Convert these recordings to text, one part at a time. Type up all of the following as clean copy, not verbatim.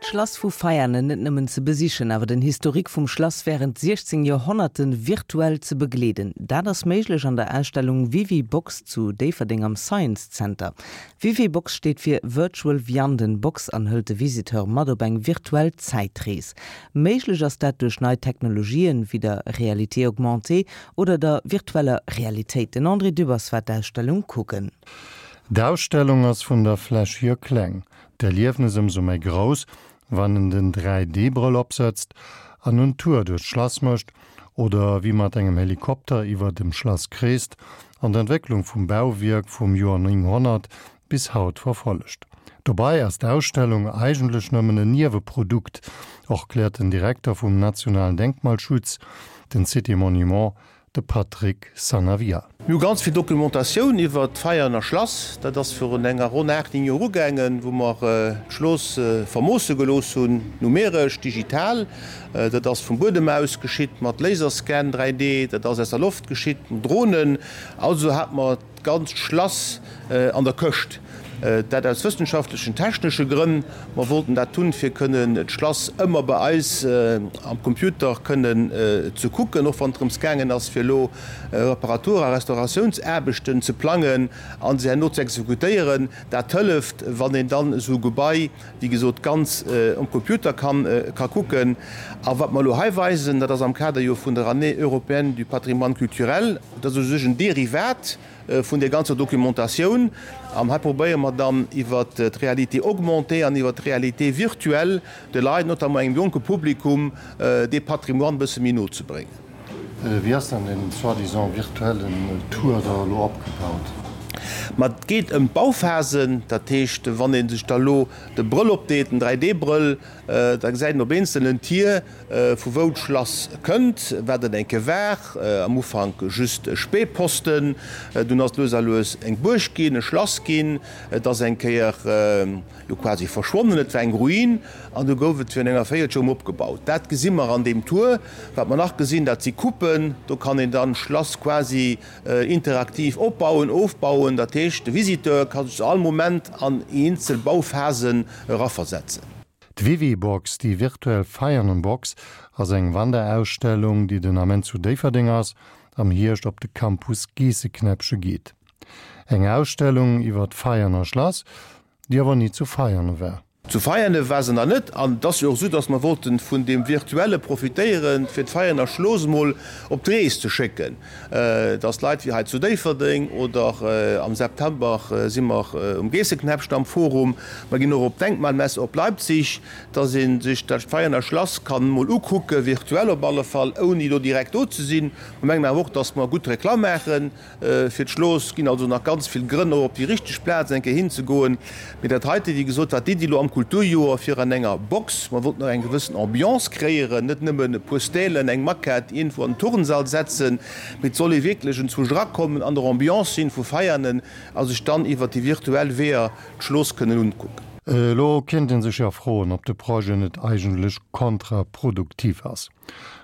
D'Schlass vu Veianen net nëmmen ze besichen, awer den Historique vum Schlass wärend 16 Joerhonnerte virtuell ze begleeden, dat ass méiglech an der Ausstellung Vivi-Box zu Déifferdeng am Science Center. Vivi-Box steet fir Virtual Vianden Box an hëlt de Visiteur mat op eng virtuell Zäitrees. Méiglech ass dat duerch nei Technologien, wéi der Réalité augmentée oder der virtueller Realitéit. Den André Dübbers war d'Ausstellung kucken. D'Ausstellung ass vun der Fläch hier kleng, d'Erliefnes ëmsou méi grouss, wann en den 3D-Brëll opsëtzt an en Tour duerch d'Schlass mécht oder wéi mat engem Helikopter iwwer dem Schlass kreest an d'Entwécklung vum Bauwierk vum Joer 900 bis haut verfollegt. Dobei ass d'Ausstellung eigentlech nëmmen en Nieweprodukt, erkläert den Direkter vum nationalen Denkmalschutz, den Cité Monument, De Patrick Sanavia. Mir hu ganz vill Documentatioun iwwert d'Veianer Schlass. Dat ass virun enger ronn 8, 9 Joer ugaangen, wou mer d'Schloss vermoosse gelooss hunn, numeresch, digital. Dat ass vum Buedem aus geschitt mat Laserscan 3D, dat ass aus der Loft geschitt mat Dronen. Also hate mer d'ganzt Schlass an der Këscht. Dat aus wëssenschaftlechen, technesche Grënn. Mer wollten dat hunn, fir kënnen d'Schlass ëmmer bei eis am Computer kënnen ze kucken, och wann et drëms gaangen ass, fir elo Reparatur a Restauratiounsaarbechten ze plangen a se herno ze exekutéieren. Dat hëlleft, wann een dann esou e Gebai, wéi gesot, ganz um Computer kann ka kucken. A wat mer elo hei weisen, dat ass am Kader jo vun der Année européenne du patrimoine culturel, dat ass u sech en Derivat vun där ganzer Documentatioun. An hei probéiere mer dann iwwert d'Réalité augmentée an iwwert d'Réalité virtuelle de Leit, notamment engem jonke Publikum, dee Patrimoine e bësse méi no ze bréngen. Wéi ass dann deen soi-disant virtuellen Tour da elo opgebaut? Ma et geet ëm d'Bauphasen. Dat heescht, wann ee sech da lo de Brëll opdeet, den 3D-Brëll, da gesäit een op eenzelen Tier, Vu wou d'Schlass kënnt, wat et eng Kéier war, am Ufank just e Spähposten, dunn ass et lues a lues eng Buerg ginn, e Schlass ginn, et ass eng Kéier jo quasi verschwonnen, et war eng Ruin an du gouf et virun enger Véierelstonn erëm opgebaut. Dat gesi mer an deem Tour. Wat mer nach gesinn, dat si Coupen, do kann een dann d'Schlass quasi interaktiv opbauen, ofbauen, dat heescht de Visiteur ka sech zu all Moment an eenzel Bauphasen eraversetzen. D'Vivi-Box, déi virtuell Veianen-Box, ass eng Wanderausstellung, déi den Ament zu Déifferdeng ass, am Hierscht op de Campus Geesseknäppche geet. Eng Ausstellung iwwer d'Veianer Schlass, déi awer ni zu Veiane war. Zu Veiane war se nach net an et ass jo och esou, datt mer wollten vun deem Virtuelle profitéieren, fir d'Veianer Schloss emol op d'Rees ze schécken. Dass Leit wéi hei zu Déifferdeng oder am September si mer um Geesseknäppchen am Forum, mer ginn och op d'Denkmalmesse op Leipzig, dass ee sech dat Veianer Schlass kann mol ukucken, virtuell op alle Fall, ouni do direkt do ze sinn. Mer mengen awer och, dass mer gutt Reklamm maache fir d'Schloss. Ginn also nach ganz vill Grënn och op déi richteg Plaz eng Kéier hinzegoen. Mee dat heite, wéi gesot, war d'Iddi elo am Kulturjoer fir an enger Box, mer wollten och eng gewëssen Ambiance kreéieren, net nëmmen e puer Stälen, eng Maquette iergendwou an den Turnsall setzen, mee et soll ee wierklech enzwousch erakommen, an der Ambiance sinn vu Veianen a sech dann iwwer déi virtuell Weeër d'Schloss kënnen unkucken. Elo kéint ee sech jo froen, ob de Projet net eigentlech kontraproduktiv ass.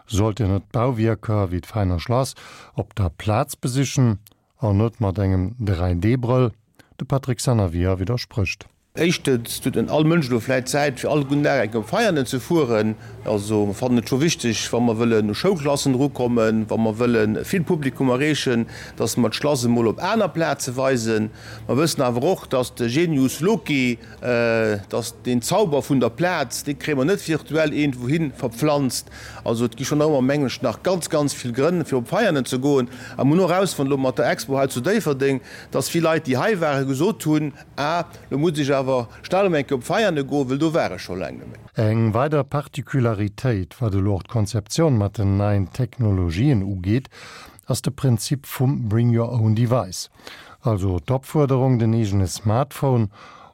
Sollt een net d'Bauwierker wéi d'Veiner Schlass op der Plaz besichen? An net mat engem 3D-Brëll. De Patrick Sanavia widdersprécht. Éischtens huet net all Mënsch elo vläit Zäit, fir all gudden Dag eng Kéier op Veianen ze fueren. Also mer fannen et scho wichteg, wa mer wëllen u Schoulklassen erukommen, wa mer wëlle vill Publikum erreechen, dass mer d'Schlass emol op aner Plaze weisen. Mer wëssen awer och, dass de Genius loci, dass deen Zauber vun der Plaz, dee kréie mer net virtuell iergendwouhi verpflanzt. Also et gi schonn nach ëmmer, mengen ech, nach ganz, ganz vill Grënn, fir op Veianen ze goen. A mer hunn och erausfonnt elo mat der Expo hei zu Déifferdeng, dass vill Leit, déi hei waren, gesot hunn, Ah, lo muss ech awer schnell erëm eng Kéier op Veiane goen, well do war ech scho laang net méi. Eng weider Particularitéit, wat elo och d'Konzeptioun mat den neien Technologien ugeet, ass de Prinzip vum Bring your own device, also d'Opfuerderung, den eegene Smartphone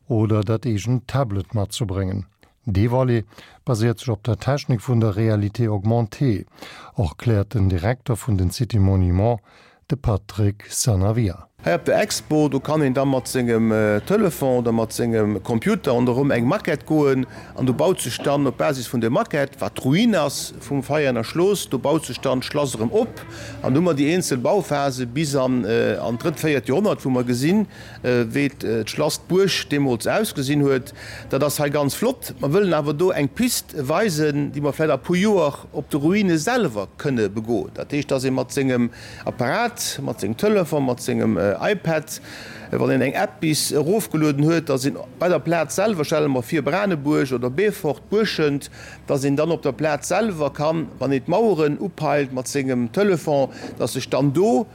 oder dat eegent Tablet matzebréngen. Dee Volet baséiert sech op der Technik vun der Réalité augmentée, erkläert den Direkter vun den Cité Monuments, de Patrick Sanavia. Hei op der Expo, do kann een da mat sengem Telefon oder mat sengem Computer ronderëm eng Maquette goen an do baut sech dann op Basis vun der Maquette, wat d'Ruin ass vum Veianer Schlooss, do baut sech dann d'Schlass erëm op an do hu mer déi eenzel Bauphase bis an d'drëtt, véiert Joerhonnert, wou mer gesinn, wéi d'Schlass, d'Buerg deemools ausgesinn huet. Dat ass hei ganz flott. Mer wëllen awer do eng Pist weisen, déi mer vläicht a puer Joer op de Ruine selwer kënne begoen. Dat heescht, dass ee mat sengem Apparat, mat sengem Telefon, mat sengem iPad, wann een eng App bis erofgelueden huet, dass een bei der Plaz selwer, stelle mer vir Branebuerg oder Beefort, Buerschent, dass een dann op der Plaz selwer kann, wann een d'Maueren upeilt mat sengem Telefon, dass sech dann do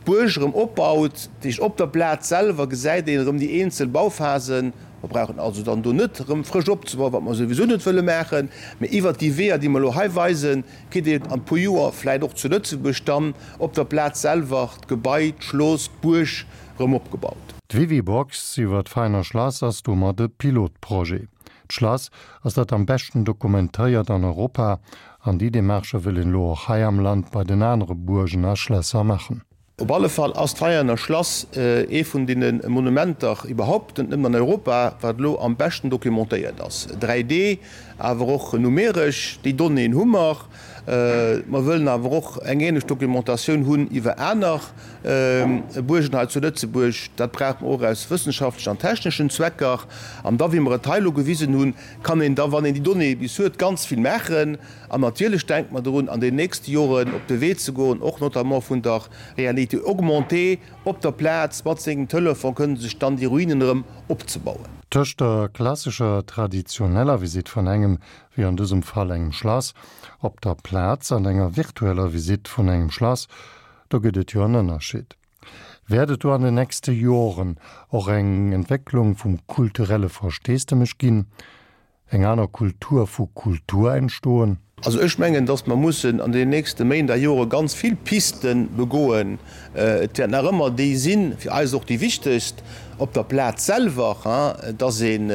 d'Buerg erëm opbaut. Dat heescht, op der Plaz selwer gesäit een erëm déi eenzel Bauphasen. Mer brauchen also dann do net erëm frësch opzebauen, wat mer souwisou net wëlle maachen, mä iwwert déi Weeër, déi mer elo hei weisen, kritt een an puer Joer vläit och zu Lëtzebuerg dann op der Plaz selwer d'Gebai, d'Schloss, d'Buerg erëm opgebaut. D'Vivibox iwwer d'Veiner Schlass ass domat e Pilotprojet. D'Schlass ass dat am beschten dokumentéiert an Europa an déi Demarchë wëll een elo och hei am Land bei den anere Buergen a Schlässer maachen. Op alle Fall ass d'Veianer Schlass ee vun deene Monumenter iwwerhaupt, net nëmmen an Europa, wat elo am beschten documentéiert ass. 3D, awer och numeresch, déi Donnéeën hu mer. Mer wëllen awer och eng ähnlech Documentatioun hunn iwwer aner Buergen hei zu Lëtzebuerg. Dat brauche mer och aus wëssenschaftlechen an techneschen Zwecker. An da, wéi mer et hei elo gewisen hunn, kann een da, wann een déi Donnéeë bis huet, ganz vill maachen. An natierlech denke mer drun, an den nächste Joren op de Wee ze goen, och notamment vun der Réalité augmentée, op der Plaz mat sengem Telefon kënnen sech dann déi Ruinen erëm opzebauen. Tëscht der klassescher traditioneller Visitt vun engem, wéi an dësem Fall engem Schlass, op der Plaz an enger virtueller Visitt vun engem Schlass, do gëtt et jo en Ënnerscheed. Wäert et do an den nächste Joren och eng Entwécklung vum kulturelle Versteesdemech ginn? Eng aner Kultur vu Kultur entstoen? Also ech mengen, datt mer mussen an den nächste Méint a Jore ganz vill Piste begoen. Et wäert nach ëmmer déi sinn, fir eis och déi wichtegst, op der Plaz selwer, datt een,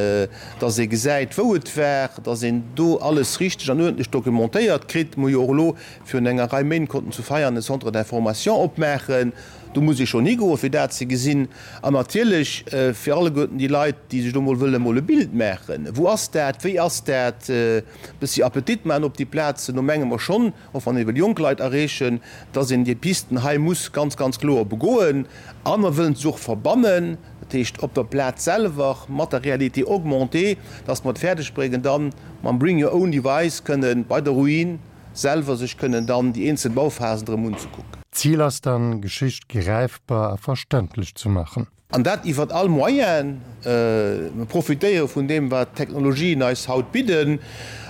datt ee gesäit, wou et war, datt een do alles richteg an uerdentlech documentéiert kritt. Mer hu jo och elo virun enger Rei Méint konnten zu Veianen e Centre d'information opmaachen. Do muss ee schonn higoen, fir dat ze gesinn. An natierlech fir alleguerten déi Leit, déi sech do mol wëlle mol e Bild maachen, Wou ass dat, wéi ass dat, e bëssi Appetit maachen op déi Plazen. Do menge mer schonn, och wann ee wëll jonk Leit erreechen, dass een déi Pisten hei muss ganz, ganz kloer begoen. A mer wëllen se och verbannen, dat heescht op der Plaz selwer mat der Réalité augmentée, dass mer et fäerdeg bréngen, dann mam Bring your own device kënnen bei der Ruin selwer sech kënnen dann déi eenzel Bauphasen erëm unzekucken. D'Zil ass dann, Geschicht gräifbar a verständlech ze maachen. An dat iwwert all Moyen. Mer profitéiere vun deem, wat d'Technologien eis haut bidden.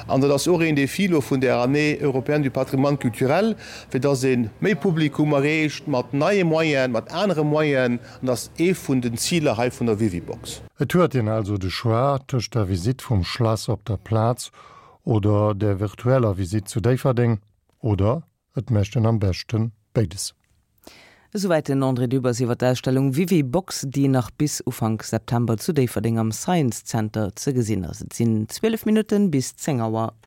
An dat ass och een Défi elo vun där Année européenne du patrimoine culturel, fir dass ee méi Publikum erreecht mat neie Moyenen, mat anere Moyenen. An dat ass ee vun den Ziler hei vun der Vivibox. Et huet een also de Choix tëscht der Visitt vum Schlass op der Plaz Oder der virtueller Visitt zu Déifferdeng. Oder et mécht en am beschte béides. Esouwäit den André Dübbers iwwer d'Ausstellung Vivi-Box, déi nach bis Ufank September zu Déifferdeng am Science Center ze gesinn ass. Et sinn 12 Minutten bis 10 Auer.